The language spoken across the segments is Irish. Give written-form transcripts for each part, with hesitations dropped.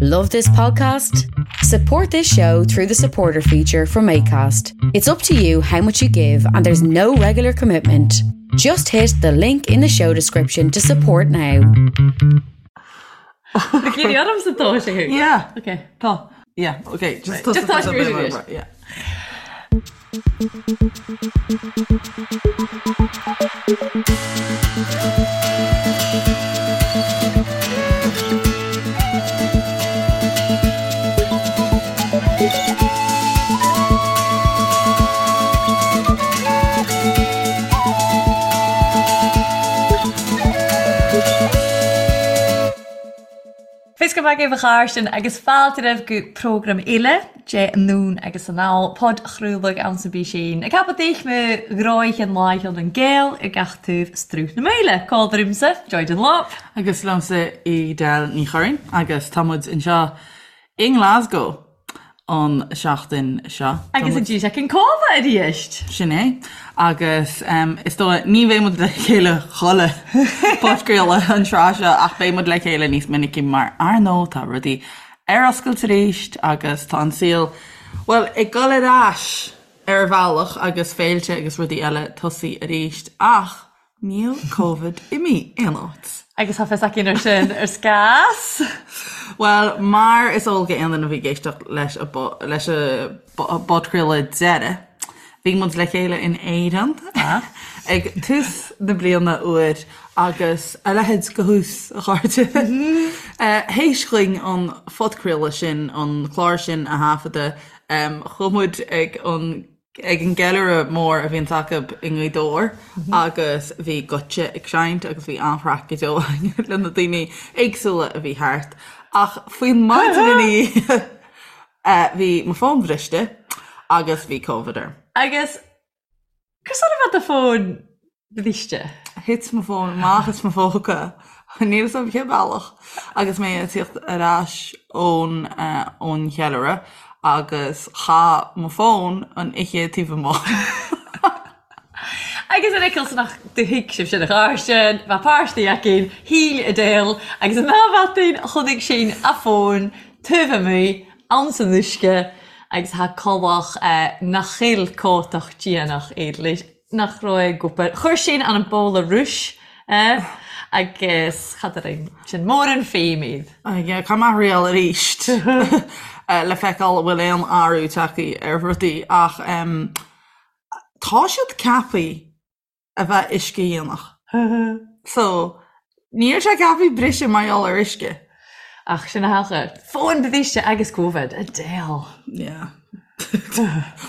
Love this podcast? Support this show through the supporter feature from ACAST. It's up to you how much you give, and there's no regular commitment. Just hit the link in the show description to support now. Yeah. Okay. Tá. Yeah, okay. Just Just tá sé Yeah. Fios go maith agaibh a chairde agus fáilte romhaibh go prógram eile de Anonn agus Anall, podchraoladh ann sa bpísín. Ag ceapadh daoich mo ghráighean láicheann an Gael ar gach taobh Struth na Maoile. Cá ormsa, Joy Dunlop. Agus liomsa Edel Ní Churraoin agus tá muid anseo i nGlasgow. an seachtain seo. Agus an dtí an cóimhe arís. Sin é. Agus is dóigh, ní bheidh muid le chéile chuile podchraoladh an tráth seo ach beidh muid le chéile níos minicí mar ar ndóigh tá rudaí ar oscailt arís agus tá an saol, bhuel, ag dul ar ais ar bhealach agus féilte agus rudaí eile tosaí arís ach Níl Covid imithe aon áit. Agus tá fios againn ar sin ar scás. Bhuel, mar is eol go aon duine a bhí ag éisteacht leis a leis a bpodchraoladh deiridh, bhí muid le chéile in Éirinn ag tús na bliana úir agus a leithéid de thús, a chairde. Théis dhuinn an phodchraoladh sin, an clár sin a thaifeadadh, chuaigh muid ag an ag an gceiliúradh mór a bhíonns acu i nGaoth Dobhair agus bhí Goitse ag seinnt agus bhí an-chraic go deo againn le na daoine éagsúla a bhí thart. Ach faoin maidin ina dhiaidh bhí mo fón bhriste agus bhí Covid orm. Agus conas a bheith do fón Bhriste. Thit mo fón amach as mo phóca, níl 'fhios a'm cén bealach, agus mé ag tíocht ar ais ón ón cheiliúradh agus chaith mo fón an oíche taobh amuigh. Agus an fhiceall san ach do thuig sibh sin a chairde, bheadh páistí againn, shíl Edel agus an dá bhataín chonaic sinn a fón taobh amuigh ann san uisce agus thá collach nach chill cótach déanach éadleis. nach raibh ag obair. Chuir sin an bóla rúis é agus cad a rinn sin mór an feidhm iad. Yeah, caithfidh mé a thriail arís le feiceáil an bhfuil aon athrú tagtha ar rudaí ach tá siad ceaptha a bheith uiscedhíonach. So, níl sé ceaptha briseadh mar gheall ar uisce. Ach sin a thaca. Fón briste agus Covid, Edel. Yeah.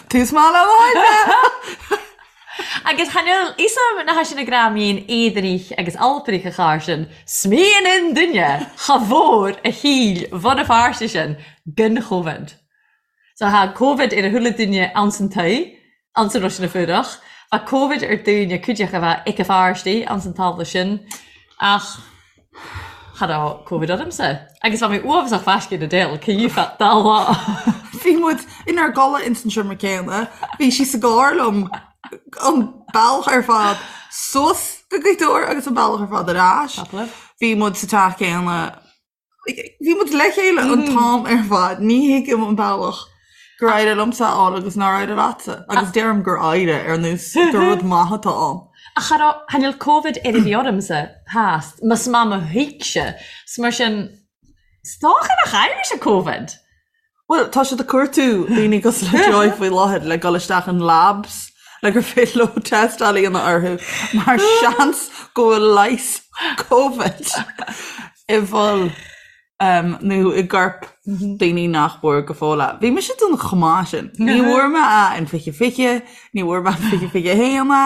Tús maith le lá Agus chan fhuil fhios a'm na sin a greamaíonn éadanach agus alparach a chár sin, smaoin an duine cha mhór a shíl bhun a pháirte sin gan Chovid. So thá Covid ar a chuile duine anns an toigh, anns an Rois na Fuarach. Bha Covid ar daoine cuideachta a bheith ag a pháirtí anns an tábla sin ach cha raibh Covid ormsa. Agus bha mé uafasach faiscéin Edel, cé feadh dá lá. Bhí muid inár gcodladh ins an seomra céanna, bhí sí sa gcarr liom an bealach ar fad suas go Gaoth Dobhair agus an bealach ar fad ar ais. Bhí muid sa teach céanna Bhí muid le chéile an t-am ar fad, ní thuigim an bealach gur éirigh liomsa a fháil agus nár éirigh leatsa, agus deirim gur éirigh ar nós gur rud maith atá ann. Ach cha raibh, chan fhuil Covid ar a bhí ormsa, theas, más maith mo thuigse, 's mar sin, 's dócha nach éirigh sé Covid. Bhuel, tá siad ag cuartú daoine cosúil le Joy faoi láthair le dul isteach in labs le gur féidir leo tástáil a dhéanamh orthu mar seans go bhfuil leigheas Covid i bhfuil nó i gcorp daoine nach bhfuair go fóill é. Bhí mise den chomh maith sin. Ní bhfuair mé é in 2020, ní bhfuair mé in 2021 é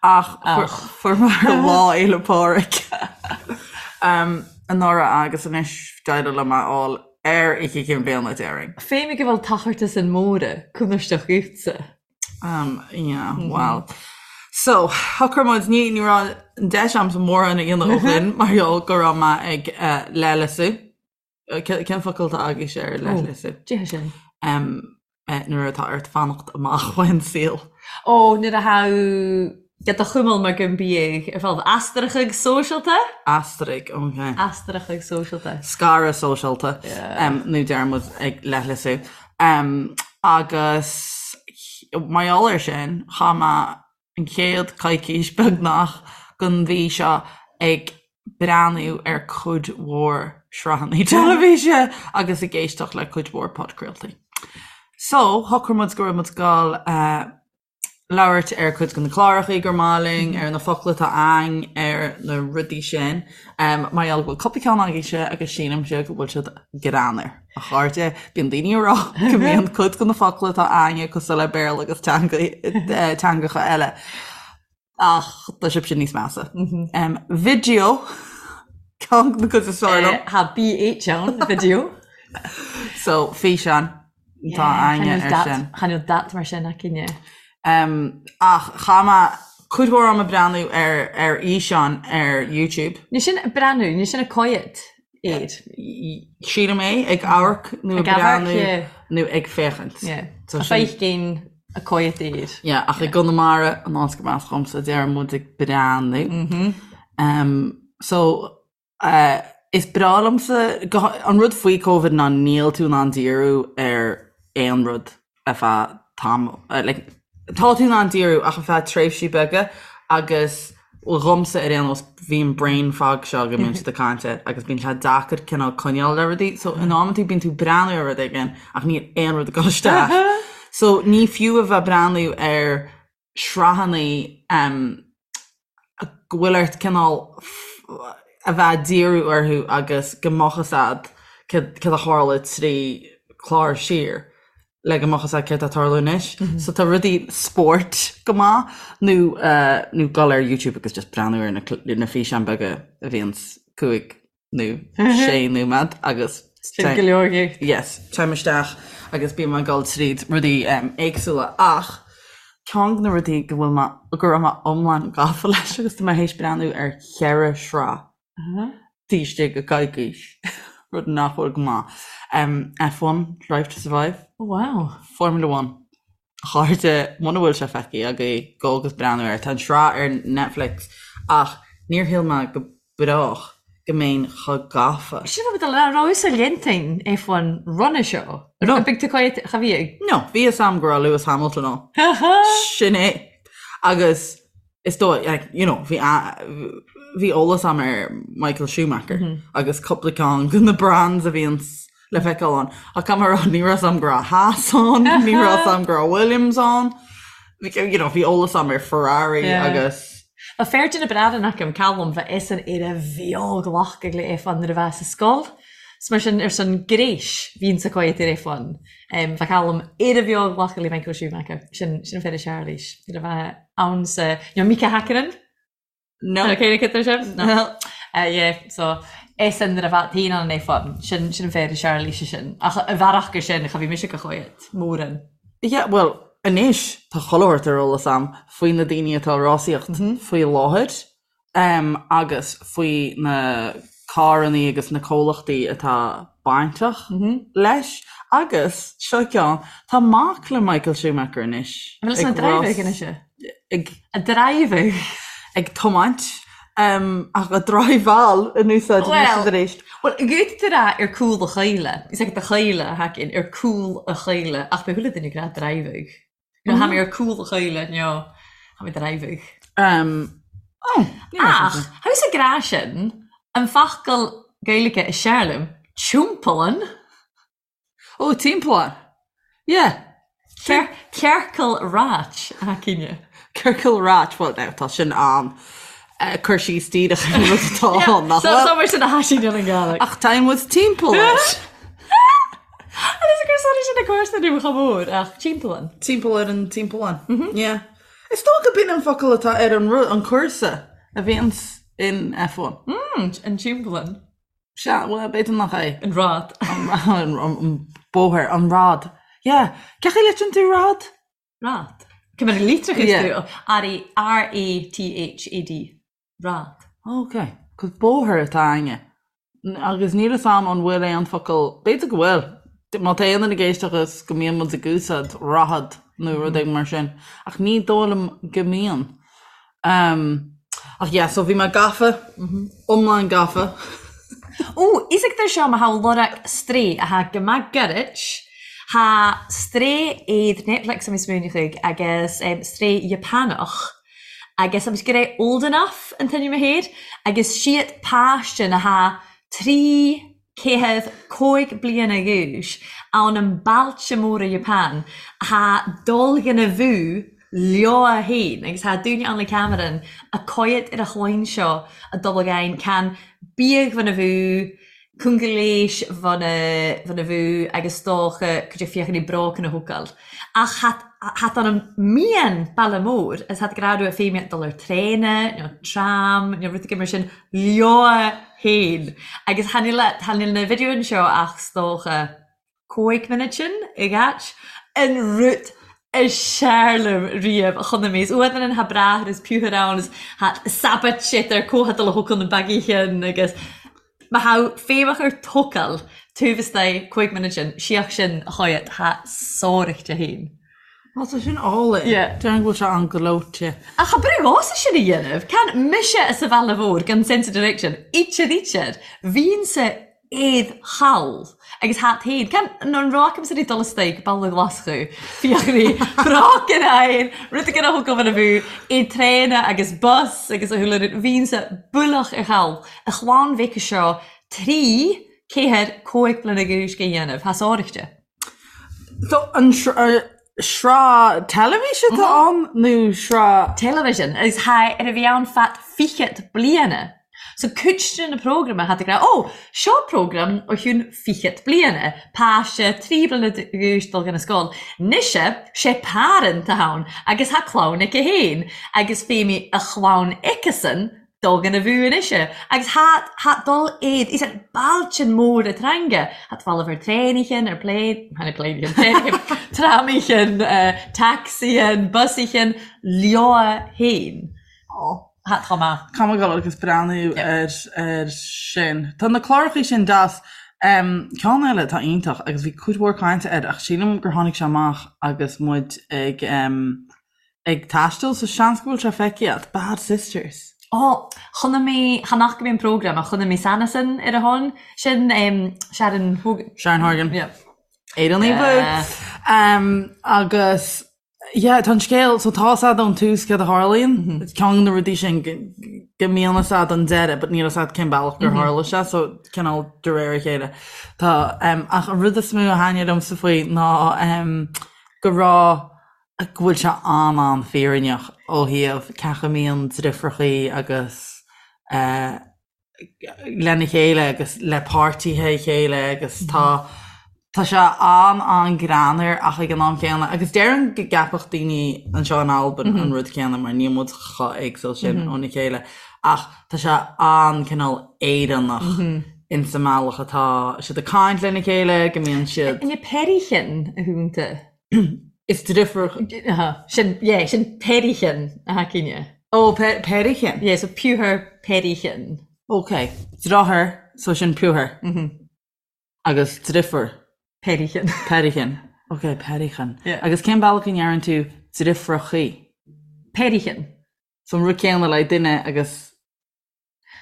ach fuair mé ar Lá Fhéile Pádraig anuraidh agus anois d'éirigh liom é a fháil Ar Oíche Chinn Bliana, déarfainn. Féimidh go bhfuil tachartas an móra cúnaisteach uaitse. Um, yeah, well. So, shocraigh muid, ní, ní raibh an deis a'msa mórán a dhéanamh ó shin mar gheall go raibh mé ag uh, leithleasú. Cén focal atá agaibhse ar leithleasú? Dé sin. Um, eh, nuair atá ort fanacht amach ón saol. Ó, nuair a thá. Ge do chumail mar gun biadh ar fáil eastarachadh sóisialta. Eastaraigh, ok. Eastarachadh sóisialta. Scaradh sóisialta, nó deir muid ag leithleasú. Agus mar gheall air sin, chaith mé an chéad coicís beagnach den mhí seo ag breathnú ar cuid mhór sraitheanna teilifíse agus ag éisteacht le cuid mhór podchraoltaí. So, shocraigh muid go raibh muid ag dul labhairt ar cuid de na clárachaí gur maith linn, ar na focla atá a'ainn, ar na rudaí sin. Mar gheall go bhfuil cúpla ceann agaibhse agus sílimse go bhfuil siad greannmhar. A chairde, bíonn daoine ag rá go mbíonn cuid de na focla atá a'ainne cosúil le Béarla agus teangacha eile. Ach tá sibhse níos measa. Video, ceann de na cuid is fearr liom. Tá BH ann, video. So, físeán. Tá a'ainne ar sin. Chan eil dat mar sin againne. Ach chaith mé cuid mhór ama breathnú ar ar fhíseáin ar YouTube. Ní sin ag breathnú, ní sin ag coimhéad air. Sílim é, ag amharc nó ag breathnú nó ag féachaint. A feicinn ag coimhéad air. Yeah, ach i gConamara, an áit gurb as dhomsa, deir muid ag breathnú. So, Is breá liomsa, an rud faoi Covid ná níl tú in ann díriú ar aon rud ar feadh tamaill, like tá tú in ann díriú ach ar feadh tréimhsí beaga agus dhomsa ar aon nós bhí an brain fog seo go mbíonn siad ag caint air agus bíonn sé deacair cineál coinneáil le rudaí so in amantaí bíonn tú breathnú ar rud éigin ach níl aon rud ag dul isteach. So ní fiú a bheith breathnú ar sraitheanna go bhfuil ort cineál a bheith ag díriú orthu agus go mbeadh fhios a'd céard a tharla 3 chlár siar le go mbeadh fhios a'd céard atá ag tarlú anois. So tá rudaí spóirt go maith nó nó dul ar YouTube agus just breathnú ar na físeáin beaga a bhíonns 5 nó 6 nóiméad agus Sin go leor dhuit. Yes, téim isteach agus bím ag dul tríd rudaí éagsúla ach ceann de na rudaí go bhfuil mé, go raibh mé iomlán gafa leis agus tá mé théis breathnú ar cheithre shraith taobh istigh de coicís, rud nach bhfuil go maith. F1, Drive to Survive. Oh wow. Formula One. A chairde, muna bhfuil sé feicthe agaibh, gabh agus breathnú air. Tá an sraith ar Netflix ach níor shíl mé go brách go mbeinn chomh gafa. Sin rud a raibh sa léantain F1 roimhe seo. No. Big to quiet cha bhí ag. No, bhí fhios a'm go raibh Lewis Hamilton ann. Sin é. Agus is dóigh, like, you know, bhí bhí eolas a'm ar Michael Schumacher agus cúpla ceann de na brands a bhíonns le feiceáil ann. Ach caithfidh mé a rá, ní raibh fhios a'm go raibh Haas ann, ní raibh fhios a'm go raibh Williams ann. You know, bhí eolas a'm ar Ferrari agus. Ba fear de na Bradán agam, Callum, bha eisean air a bheag-ghlacadh le F1 nuair a bha sa sgoil. 'S mar sin, ar son gréis, bhíonn sa choimhéad ar F1. Bha Callum air a bheag-ghlacadh le Michael Schumacher. Sin, sin an fear a Charlies. Nuair a bha ann sa, you know, Mika Häkkinen? No. Okay, cé sin? No. Yeah, so eisean nuair a bha féin ann an F1, sin, sin an fear a Charlies sin. Ach a bhearach gur sin, cha bhí mise go choimhéad, mórán. Yeah, bhuel, anois tá chuile shórt ar eolas a'm faoi na daoine atá ag rásaíocht faoi láthair agus faoi na carrannaí agus na comhlachtaí atá bainteach leis agus, seo ceann, tá mac le Michael Schumacher anois An bhfuil ag rás, anois é? ag A driving. ag tiomáint ach a driveáil in úsáid anois is arís. Bhuel, guth tú rá ar cúl a chaoile. Is ag do chaoile a thacaíonn ar cúl a chaoile ach beidh chuile duine ag rá driving. You know, Tha mi ar cúl a chaoile, nó tha mi driving. Oh, ní raibh Ach, sé sin. tha thusa ag rá sin, an focal Gaeilge is sear liom, timpeallan. Ó, timpeallán. Yeah. Ciorcal ráit, a cinne. Ciorcal ráit, well now, tá sin an cur síos díreach ar an rud atá ann, nach So, bhfuil? so mar sin a thaisín an Ghaeilge. Ach tá muid timpeall air. Agus gur sona sin a cúrsa nó chomh mór ach timpeallán. Timpeall ar an timpeallán. Yeah. Is dócha b'in an focal atá ar an rud, an cúrsa a bhíonns in F1. Mm, an timpeallán. Sea, bhuel, b'fhéidir nach é. An rad. An bóthar, an rad. Yeah. Cén chaoi a litríonn tú rad? Rad. Cé mar a litreochas tú? R-A-T-H-A-D. Rad. Ok. 'Cos bóthar atá a'inne. Agus níl fhios a'm an bhfuil aon focal, b'fhéidir go bhfuil, má tá aon duine ag éisteacht agus go mbíonn muid ag úsáid rathad nó rud éigin mar sin. Ach ní dóigh liom go mbíonn. Ach yeah, so bhí mé gafa, iomlán gafa. Ó, isagtar seo ma tha lorag strae a tha go math gairid, tha strae iad Netflix am smaoineachadh agus strae Japanach agus am go raibh Old Enough an t-ainm a thair agus siad páiste na tha 305 bliana dh'aois ann an bailte móra Japan tha dul gona bhú leo fhéin agus tha daoine ann le ceamarain a coigead ar a chloinn seo a dul againn can biadh bhun a bhú cúnga léis bhun a bhun a bhú agus dócha cuid de fiachanaí brócan a thógáil. Ach tha tha an mian baile mór is tha grá rua féimhe dul ar traena nó tram nó rud éigin mar sin leo fhéin agus tha níl tha níl na videoin seo ach 's dócha 5 muinead sin i gcait an rud is sear liom riamh a chonaic mé. Is uaidh an tha bráthair is piúthar ann is tha sabat siad ar comhthadal a thógáil na bagaí agus má tha féimheach ar tógáil taobh istigh 5 muinead sin síoch sin a choigead tha sáraichte féin. Á tá sin álainn. Yeah. Déarfainn go bhfuil sé an-ghleoite. Ach cha brú dhomsa sin a dhéanamh. Can mise sa bhaile mhór gan sense of direction. Ítear ítear. Bhínnse éad chall agus hat féin. Can an raibh agamsa rí dul istoigh baile Ghlaschú. Fiachraí broc in aghaidh rud éigin a thug an a bhú i traena agus bus agus a chuile rud. Bhínnse bualach ar chall. A chlann mhic seo 3 4 5 bliana dh'aois go dhéanamh. Tha sáraichte. So an sraith teilifíse atá ann nó sraith. Television agus tha ar a bhí ann fad fichead bliana. So cuid de na prógrama tha tú ag rá ó seo prógram ó chiúin fichead bliana, páiste 3 bliana d'aois dul chun na scoil. Noise sé parent atá ann agus tha clann aici féin agus féimidh a chlann aici-san dul gona bhú anois agus tha tha dul éad is an bailtin mór a teanga tha falamh ar traenaichin ar plane tháinig plane traenaichin tramaichin taxi-an busaichin leo féin tha tá maith. Caithfidh mé dul agus breathnú ar ar sin. Tá na clárachaí sin deas. Ceann eile atá iontach agus bhí cuid mhór cainte air ach sílim gur tháinig sé amach agus muid ag ag taisteal so seans go bhfuil sé feicthe agat, Bad Sisters. Ó, chonaic mé, chan fhaca mé an prógram ach chonaic mé sanasan ar a shon, sin Sharon Horgan. Sharon Horgan. Yeah. Éireannaigh bhú. Agus yeah, tá an scéal, so tá 'fhios a'd ón tús céard a tharlaíonn, ceann de na rudaí sin go mbíonn 'fhios a'd an deireadh but níl 'fhios a'd cén bealach gur tharla sé, so cineál de réir a chéile. Tá, ach an rud is mó a thaitnigh liomsa faoi ná go raibh go bhfuil sé an-an-fhírinneach ó thaobh cén chaoi a mbíonn driofrachaí agus lena chéile agus le páirtithe a chéile agus tá tá sé an-an-greannmhar ach ag an am céanna agus déarfainn go gceapfadh daoine anseo in Albain an rud céanna mar níl muid chomh éagsúil sin óna chéile ach tá sé an-cineál Éireannach insa mbealach atá siad ag caint lena chéile go mbíonn siad. An é peirichin a thúnta? Is driofúr. Sin, yeah, sin peirichin a thacaíne. Ó, peirichin? Yeah, so piúthar peirichin. Ok. Deartháir, so sin piúthar. Agus driofúr. Peirichin. Peirichin. Ok, peirichin. Yeah. Agus cén bealach a ndeireann tú driofrachaí? Peirichin. So an rud céanna le duine agus.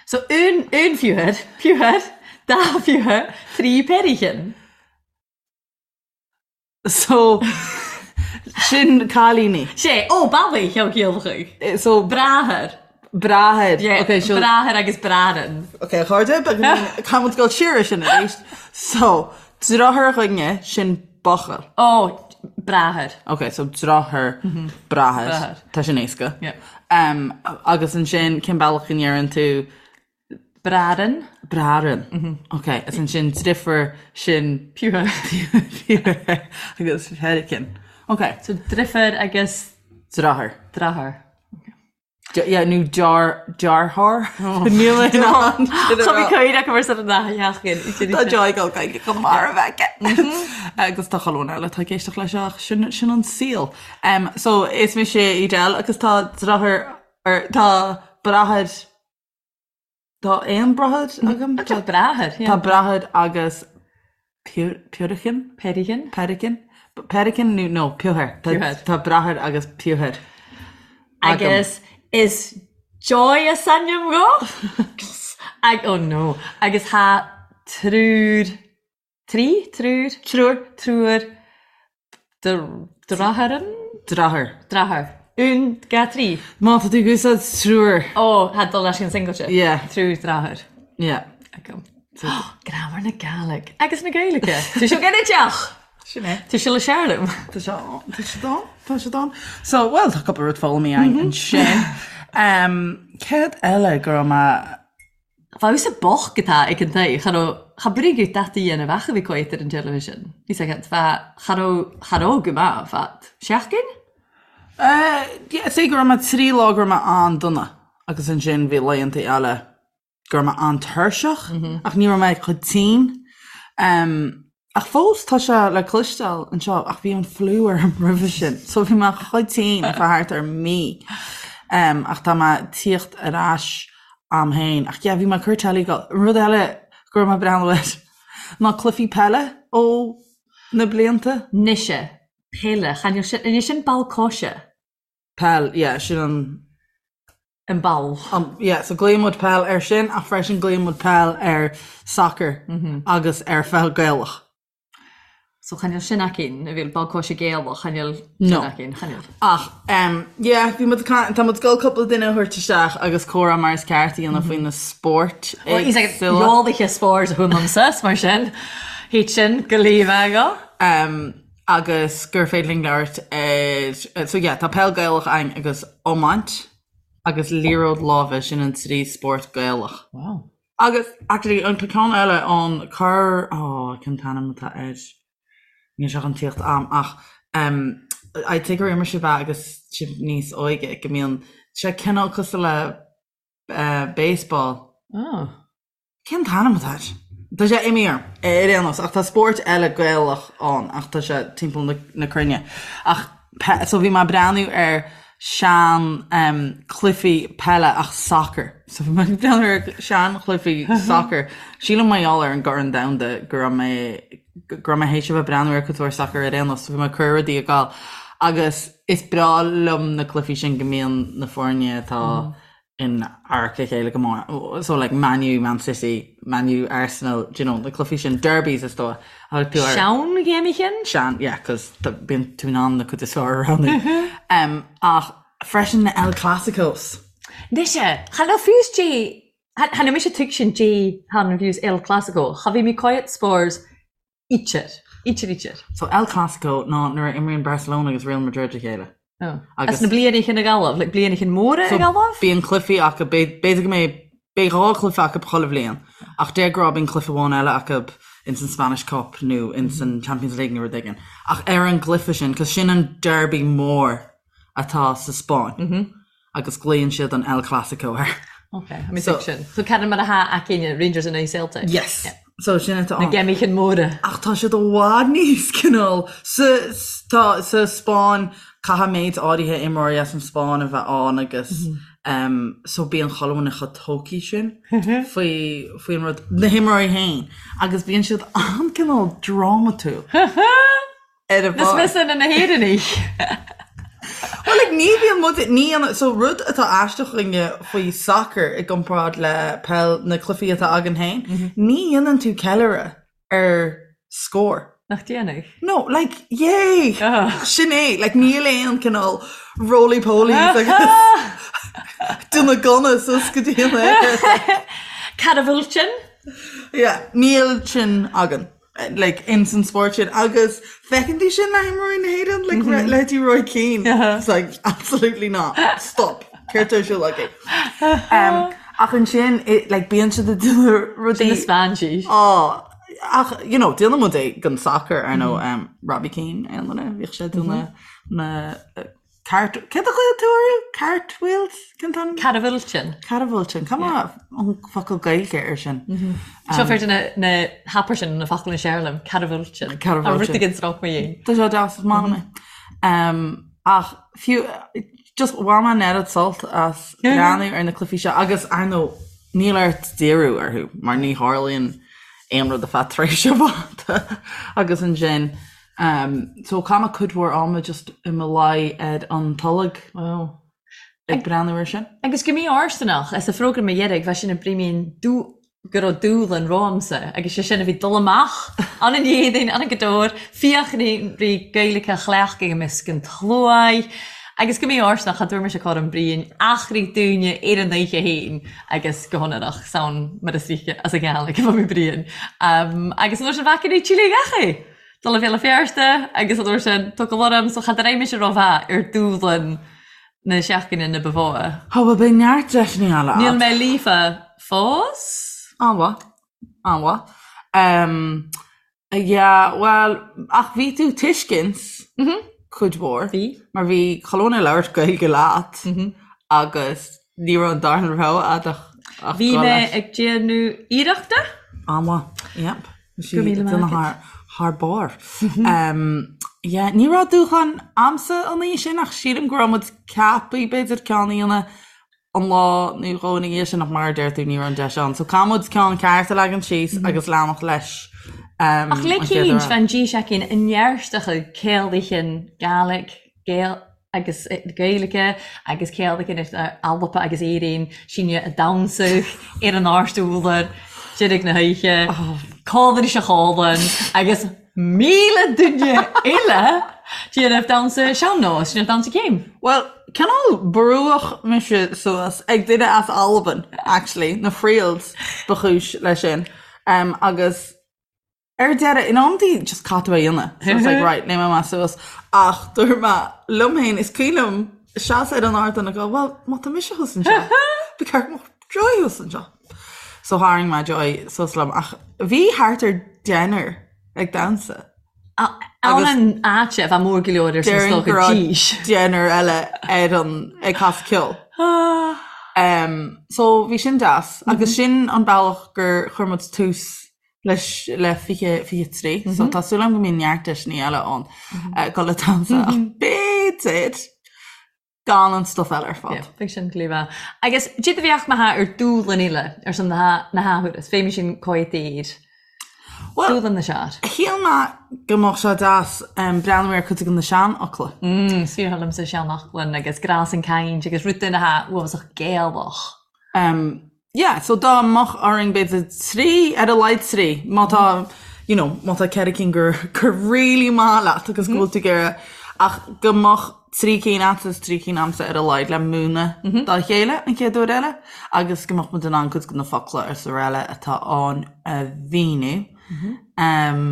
So un, un piúthar, piúthar, dá phiúthar, trí peirichin. So, sin cailíní. Sé, ó, ballaí, cheol ciallach. So. Bráthair. Bráthair. Yeah, okay, so. Bráthair agus bráthrann. Ok, a chairde, caithfidh muid dul siar ar sin arís. So, deartháir againne, sin buachaill. Ó, bráthair. Ok, so deartháir, bráthair. Bráthair. Tá sin éasca. Yeah. Um, agus ansin, cén bealach a ndeireann tú Bráthrann. Bráthrann. Ok, is ansin driofúr sin. Piúthar. Piúthar agus peirichin. Ok. So driofúr agus. Deartháir. Deartháir. Yeah, nó dear, deartháir. Níl mé in ann sin a Tá mé rá. cuimhne acu mar san an sheachtain. Tá Joy ag gabháil go marbh aici. Agus tá chuile dhuine eile atá ag éisteacht leis ach sin, sin an saol. Um, so is mise Edel agus tá deartháir, or tá bráthair Tá aon bráthair agam. Tá bráthair, yeah. Tá bráthair agus piúrichin? Peirichin. Peirichin? Peirichin nó no, piúthar. Piúthar. Tá bráthair agus piúthar agam. Agus Is Joy as ainm dho. Ag, oh no. Agus tha triúr, trí? Triúr? Triúr. Triúr deartháireann? Deartháir. Deartháir. Un, dha, trí. Má tá tú ag úsáid triúr. Ó, tha dul leis an singlte. Yeah. Triúr deartháir. Yeah. Agam. Graimear na Gàidhlig agus na Gaeilge. Tá seo ginideach! Sin é. Tá sé le searlam. Tá sé tá sé dán, tá sé dán. So, well, tá cúpla rud foghlamtha againn ansin. Um, céard eile go raibh mé Bheadh a bocht atá ag an tae, cha raibh, cha brigid dat a dhéanamh ach a bhí coit ar an television. Bhí sé agat, bheadh, cha raibh, cha raibh go maith, bheadh seachtain? Eh, yeah, say go raibh mé trí lá go raibh mé an-dona agus ansin bhí laethanta eile go raibh mé an-tuirseach ach ní raibh mé chomh tinn. Ach fós tá sé le cloisteáil anseo ach bhí an fliú orm roimhe sin so bhí mé chomh tinn ar feadh thart ar mí. Ach tá mé ag tíocht ar ais a'm féin. Ach yeah bhí mé ag cur telly go. Rud eile go raibh mé ag breathnú air ná cluichí peile ó na blianta. Mise, peile, chan eil sin, an é sin ball coise? Peil, yeah, sin an. An ball. An, yeah, so glaonn muid peil ar sin ach freisin glaonn muid peil ar soccer agus ar pheil Gaelach. So chan eil sin againn, a bhí ball coise Gaelach, chan eil sin No. againn, chan eil. Ach, em, yeah, bhí muid ag caint, tá muid ag dul cúpla duine a thabhairt isteach agus comhrá mar is ceart a dhéanamh faoi na spóirt éagsúla. Eolaithe spóirt a thuaimse, mar sin, thit sin go líomha go. Em, agus gur féidir linn labhairt ar, so yeah, tá peil Gaelach againn agus iomáint agus liathróid láimhe, sin an trí spórt Gaelach. Wow. Agus actually an tá ceann eile ann, cur, oh, cén t-ainm atá air? Níl sé chun tíocht a'm ach um, I'd say gur imir sibh é agus sibh níos óige, go mbíonn sé cineál cosúil le uh, baseball. Oh. Cén t-ainm atá air? Tá sé imithe orm, ar aon nós, ach tá spórt eile Gaelach ann ach tá sé timpeall na cruinne. Ach so bhí mé ag breathnú ar sean cluichí peile ach sacar. So bhí mé ag breathnú ar sean chluichí sacar. Sílim mar gheall ar an gCorn Domhanda go raibh mé go raibh mé théis a bheith ag breathnú ar cuid mhór sacar ar aon nós, so bhí mé ag cur rudaí ag gabháil. Agus is breá liom na cluichí sin go mbíonn na foirne atá in adharca a chéile go mór. So like Man U, Man City, Man U, Arsenal, do you know, na cluichí sin, derbies is dóigh. Thug tú ar. Sean-ghéimichin? Sean, yeah, cos bíonn tú in ann na cuid is fearr a roghnú. Um, ach freisin na El Clásicos. Mise, cha raibh fiús dé, cha raibh mise tuigsin dé han fiús El Clásico, cha bhí mé coit spores Ítear. Ítear, ítear. So El Clasico ná nuair a imríonn Barcelona agus Real Madrid a chéile. Oh. Agus na blianaí cinn ag Gaillimh, like blianaí cinn móra ag Gaillimh? Bíonn cluichí acu, b'fhéidir go mbeidh, beidh dhá chluiche acu chuile bhliain, ach de ghnáth bíonn cluiche amháin eile acu ins an Spanish Cup nó ins an Champions League nó rud éigin. Ach ar an gcluiche sin, cos sin an derby mór atá sa Spáinn. agus glaonn siad an El Clasico air. Ok, I mean so, sin. So ceann mar atá againne Rangers in aghaidh Celtic. Yes. Yeah. So sin atá Na géimichin móra. Ach tá siad i bhfad níos cineál sa tá sa Spáinn caithfidh méid áirithe imreoirí as an Spáinn a bheith ann agus mm -hmm. um, so bíonn chuile dhuine chomh tógtha sin faoi faoin rud na himreoirí féin agus bíonn siad an-cineál drámatúil. ar a bharr. Is mise na hÉireannaigh. Well like ní bhíonn muid ní dhéanann so rud atá aisteach againne faoi soccer i gcomparáid le peil na cluichí atá againn féin, ní dhéanann tú ceiliúradh ar scór. Nach déanadh? No, like, yay! Sin é, like níl aon cineál roly polies agus duine gunna suas go dtí an aer. Cad a bhfuil sin? Yeah, níl sin againn. like ins an spórt sin agus feiceann tú sin le himreoirí na hÉireann like mm -hmm. leithéidí Roy Keane uh -huh. it's like absolutely not stop céard atá ar siúl agaibh um, ach ansin like bíonn siad ag déanamh rudaí Sin Spáinnis oh, ach you know déanann muid é don soccer ar ndóigh mm -hmm. um, Robbie Keane aon duine bhíodh sé ag déanamh mm -hmm. na Cart, céard a ghlaoigh tú orthu? Cartwheels? Cén t-ainm? Catafhiltean. Catafhiltean. Cad é an focal Gaeilge air sin? Seo fear de na na hapair sin na focail na séarlaim. Catafhiltean. Catafhiltean. A rud éigin sroich mo dhéin. Tá sé deas, is maith liom é. Ach fiú, just bhain mé an oiread sult as breathnú ar na cluichí seo agus ar ndóigh níl ort díriú orthu mar ní tharlaíonn aon rud ar feadh tréimhse fhada agus ansin So chaith mé cuid mhór ama just i mo luí ar an tolg. Wow. Ag breathnú ar sin. Agus go mí-fhóirsteanach, as an phrógram a dheiridh, bheadh sin ag brímín go raibh dúshlan romhamsa agus sé sin a bhí dul amach an an Éadaoin, an an Gadóir, fiachraí rí Gaeilge a chleachtadh i measc an tsluaigh agus go mí-fhóirsteanach cha dtabhair mise cothrom Briain achraí dúinne ar an oíche féin agus go hionrach san mar is ríce as an Ghàidhlig a bheadh mé Briain. Agus an uair sin bhfaca rí Chile gach é! Dul a Bhéal Feirste agus an uair sin tugtha orm so cha raibh mise rómhaith ar dúshlan na seachtaine na ba mhó. Tá, bhuel beidh neart deiseanna eile agat. Níl mé líofa fós. An-mhaith. An-mhaith. Um, yeah, bhuel, ach bhí tú tuiscint cuid mhór. Bhí. Mar bhí chuile dhuine ag labhairt Gaeilge leat agus ní raibh an darna rogha agat ach ach Bhí dul mé leis. ag déanamh iarrachta. An-mhaith. Yep. Go raibh míle maith agat. Thar barr. Yeah, ní raibh dúshlán a'msa an oíche sin ach sílim go raibh muid ceaptha b'fhéidir ceann a dhéanamh an lá nó dhó ina dhiaidh sin ach mar a deir tú ní raibh an deis ann. So caithfidh muid ceann ceart a leagan síos agus leanacht leis Ach le cinnte bheith an dís aicinn i nearstacha céalaithe Gaelic, Gael, agus Gaeilge agus céalaithe Alba agus Éirinn sinne a damhsadh ar an áirt údar deiridh na hoíche, cálainn is a chálann agus 1,000 duine eile déanamh damhsa sean-nós, déanamh damhsa céim. Bhuel, cineál brúadh mise suas ag duine as Albain, actually, na Friels ba chúis leis sin, agus Ar deireadh, in amantaí just caithfidh tú é a dhéanamh. So it's like, right, léimfidh mé suas. Ach dúirt mé liom féin, is cuimhin liom seasamh ar an ardán ag dul, well, má tá mise thuas anseo, ba cheart go mbeadh Joy thuas anseo. So tharraing mé Joy suas liom. Ach bhí thart ar deichniúr ag damhsa. Ann an áit a bheith mór go leor ar son Déarfainn go stoca raibh dís. deichniúr eile ar an ag casadh ceoil. Um, so bhí sin deas. Agus sin an bealach gur chuir muid tús leis le 2023 so tá súil agam go mbíonn neart deiseanna eile ann dul ag damhsa ach b'fhéidir gan an stuif eile ar fad. Yeah, beidh sin glíomha. Agus cad a bheadh maith ar dúshlan eile ar son na na hathuair, is féidir sin coitír. Well, Dúshlan na sear. Shíl mé go mbeadh sé deas breathnú ar cuid de na seanfhocla. Mm, is fíor liomsa seanfhocla agus grás an caint agus rud duine atá uafásach Gaelach. Um, Yeah, so dá mbeadh orainn b'fhéidir trí, ar a laghad trí, má tá, you know, má tá ceithre cinn gur, gur really maith leat agus go bhfuil tú ag iarraidh, ach go mbeadh trí cinn agat is trí cinn a'msa ar a laghad le múineadh dá chéile an chéad uair eile agus go mbeadh muid in ann cuid de na focla is araile atá ann a mhíniú. Um,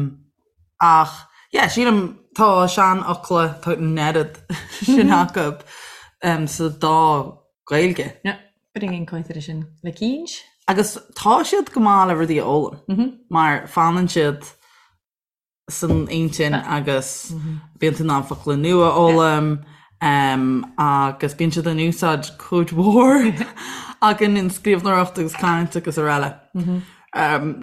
ach, yeah, sílim tá seanfhocla, tá an oiread sin acu um, sa dá Gaeilge. Yeah. Bring coitir sin le cínt. Agus tá siad go maith le rudaí a fhoghlaim, mar fanann siad san intinn agus bíonn tú in ann focla nua a fhoghlaim agus bíonn siad in úsáid cuid mhór againn in scríbhneoireacht agus caint agus araile.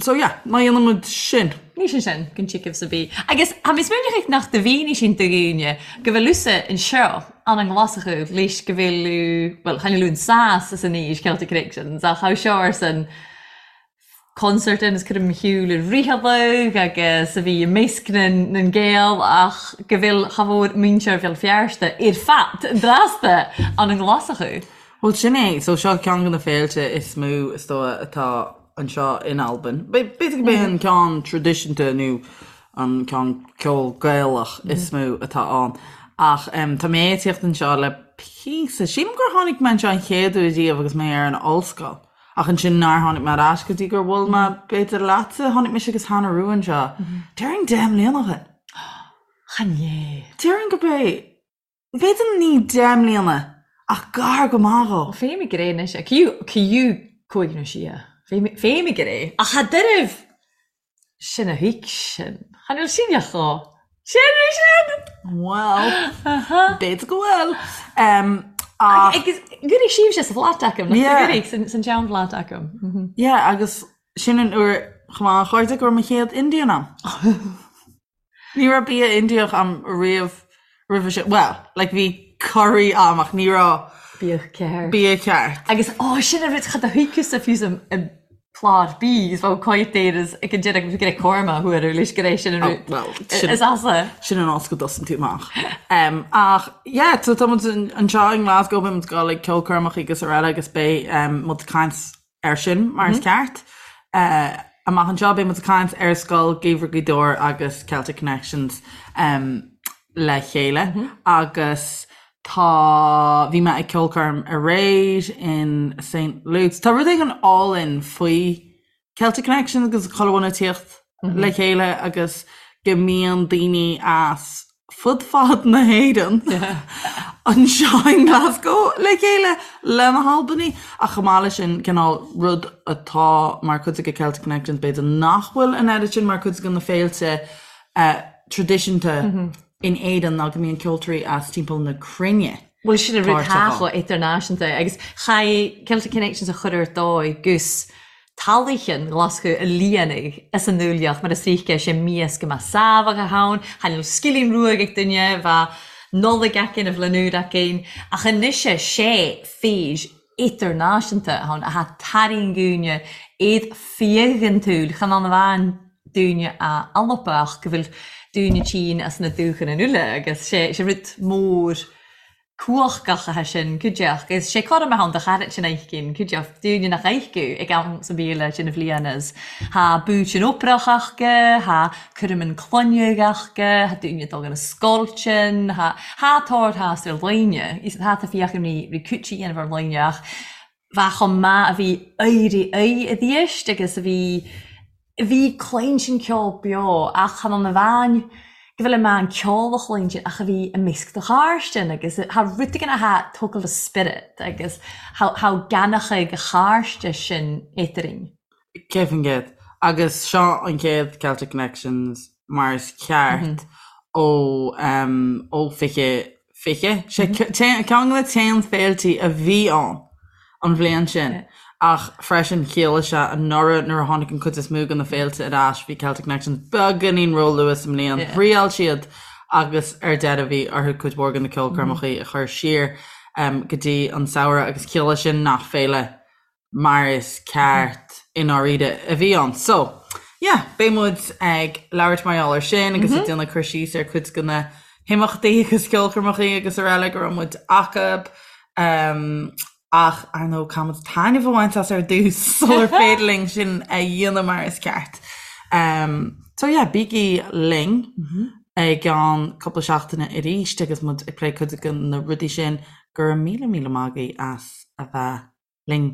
So yeah, má dhéanann muid sin. Ní sin sin, go dtiocfaidh sa bhí. Agus tá mé smaoineach nach do mhínigh sin do dhaoine go bhfuil usa anseo an an nGlaschú leis go bhfuil bhuel chan fhuil an sas is an aois Celtic Connections ach how seo arsan concert in is cuirim shiúl i ritheadh agus a bhí i measc na na nGael ach go bhfuil cha mhór muintir Bhéal Feirste ar fad drasta an an nGlaschú. Bhuel sin é, so seo ceann de na féilte is mó is dóigh atá anseo in Albain. B'fhéidir gurb é an ceann traidisiúnta nó an ceann ceol Gaelach is mó atá ann. Ach tá mé ag tíocht anseo le píosa. Sílim gur tháinig mé anseo an chéad uair riamh agus mé ar an ollscoil. Ach ansin nár tháinig mé ar ais go dtí gur bhuail mé b'fhéidir leatsa, tháinig mise agus Hannah Rua anseo. Déarfainn 10 mbliana ó shin. Chan é. Déarfainn gurb é. B'fhéidir ní 10 mbliana, ach gar go maith dhó. Féim ag ré anois, ciú cúig nó sé. Féim ag ré. Ach cha deirbh sin a thuig sin. Chan fhuil sin a chó. Sin é sin! Bhuel, b'fhéidir go bhfuil. Ach. Agus gcuirfidh sibhse sa bhflat agam, nach gcuirfidh san seanfhlat agam. Yeah, agus sin an uair chomh maith a chairde go raibh mo chéad Indian a'm. Ní raibh bia Indiach a'm riamh roimhe sin. Bhuel, like bhí curry a'm ach ní raibh Bia ceart. bia ceart. Agus, ó, sin an rud, cha do thuigfeadh fiú sa i. Plot B is bheadh coimhthíos ag an deireadh go raibh Cormac a thuar leis go raibh sin an rud Well, sin is asa. sin an áit go dtosaíonn tú amach. Um, ach, yeah, so tá muid anseo i nGlasgow, beidh muid ag dul ag ceolchoirmeacha agus araile agus beidh um, muid ag caint air sin mar is ceart. Uh, amach anseo beidh muid ag caint ar Scoil Gheimhridh Ghaoth Dobhair agus Celtic Connections um, le chéile agus Tá, bhí mé ag ceolchoirm aréir in St Luke's. Tá rud éigin álainn faoi Celtic Connections agus chuile dhuine ag tíocht le chéile agus go mbíonn daoine as fud fad na hÉireann anseo i nGlasgow le chéile le na hAlbanaigh. Ach chomh maith leis sin, cineál rud atá mar chuid de Celtic Connections b'fhéidir nach bhfuil an oiread sin mar chuid de na féilte traidisiúnta in Éirinn ná go mbíonn ceoltóirí as timpeall na cruinne Bhuel sin an rud páirteach ann. atá chomh idirnáisiúnta agus chaith Celtic Connections a chur ar dóigh gus talaichin Ghlaschú a líonadh as an ndúileach mar is oíche sé mias go mbeadh sábhach ann, chan fhuil scilling ruaig ag duine, bheadh Nollaig aicinn, a bhliain úr aicinn, ach anois sé fís idirnáisiúnta ann atá tarraingúine iad fiadhantúil chan ann amháin dúine a Alba ach go bhfuil dúine tínn as na dúchan in uile agus sé sé rud mór cumhachtach atá sin cuideachta agus sé cothrom ann do chairt sin aicinn cuideachta dúine nach aicú ag am sa bhíle sin a bhliain is thá búit an oprach aca thá cúram an cloineadh aca thá dúine ag dul na scoilteann thá thá tórthás ar dhaoine is thá tá fiach imní rí cúití dhéanamh ar dhaoine ach bheadh chomh maith a bhí éirí aghaidh i dthéist agus a bhí bhí cluinstin ceol beo ach chan ann amháin go bhfuil i meán ceol a chluinstin ach a bhí i measc do chairstean agus thá rud éigin athá tógáil do spiorad agus thá thá gannachaidh a chairste sin eatarinn. 100%. Agus seo an chéad Celtic Connections mar is ceart ó ó 2020. Sé ceann de na t-aon féiltí a bhí ann an bhliain sin ach freisin chiallaigh sé anuraidh nuair a tháinig an chuid is mó de na féilte ar ais bhí Celtic Connections beagáinín róluath sa mbliain. Thriail siad agus ar deireadh bhí orthu cuid mhór de na ceolchoirmeacha a chur siar go dtí an samhradh agus chiallaigh sin nach féile mar is ceart i ndáiríre a bhí ann. So, yeah, beidh muid ag labhairt mar gheall air sin agus ag déanamh cur síos ar cuid de na himeachtaí agus ceolchoirmeacha agus araile go raibh muid acu. Um, ach ar ndóigh caithfidh muid taitneamh a bhaint as ar dtús sular féidir linn sin a dhéanamh mar is ceart. Um, so yeah, bígí linn i gceann cúpla seachtaine arís agus muid ag plé cuid de na rudaí sin. Go raibh míle míle maith agaibh as a bheith linn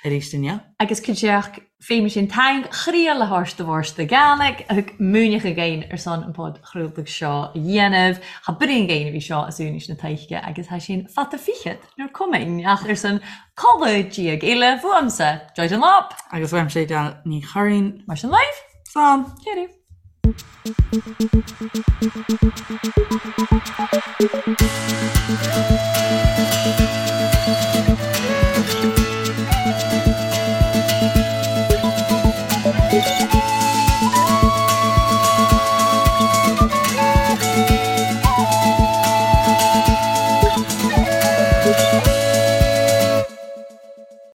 arís inniu. Agus cuideachd fé sin taing chriadh le háis do bhórsta Gàidhlig a thug múineadh againn ar son an podchraoladh seo a dhéanamh. Tha bruíon againn a bhí seo as úinis na taoisce agus tha sin fata fichead nuair cumainn ach ar son codladh diaidh eile fuaimse, Joy Dunlop. Agus uaimse Edel Ní Churraoin. Mar sin libh. Slán. Cheerio.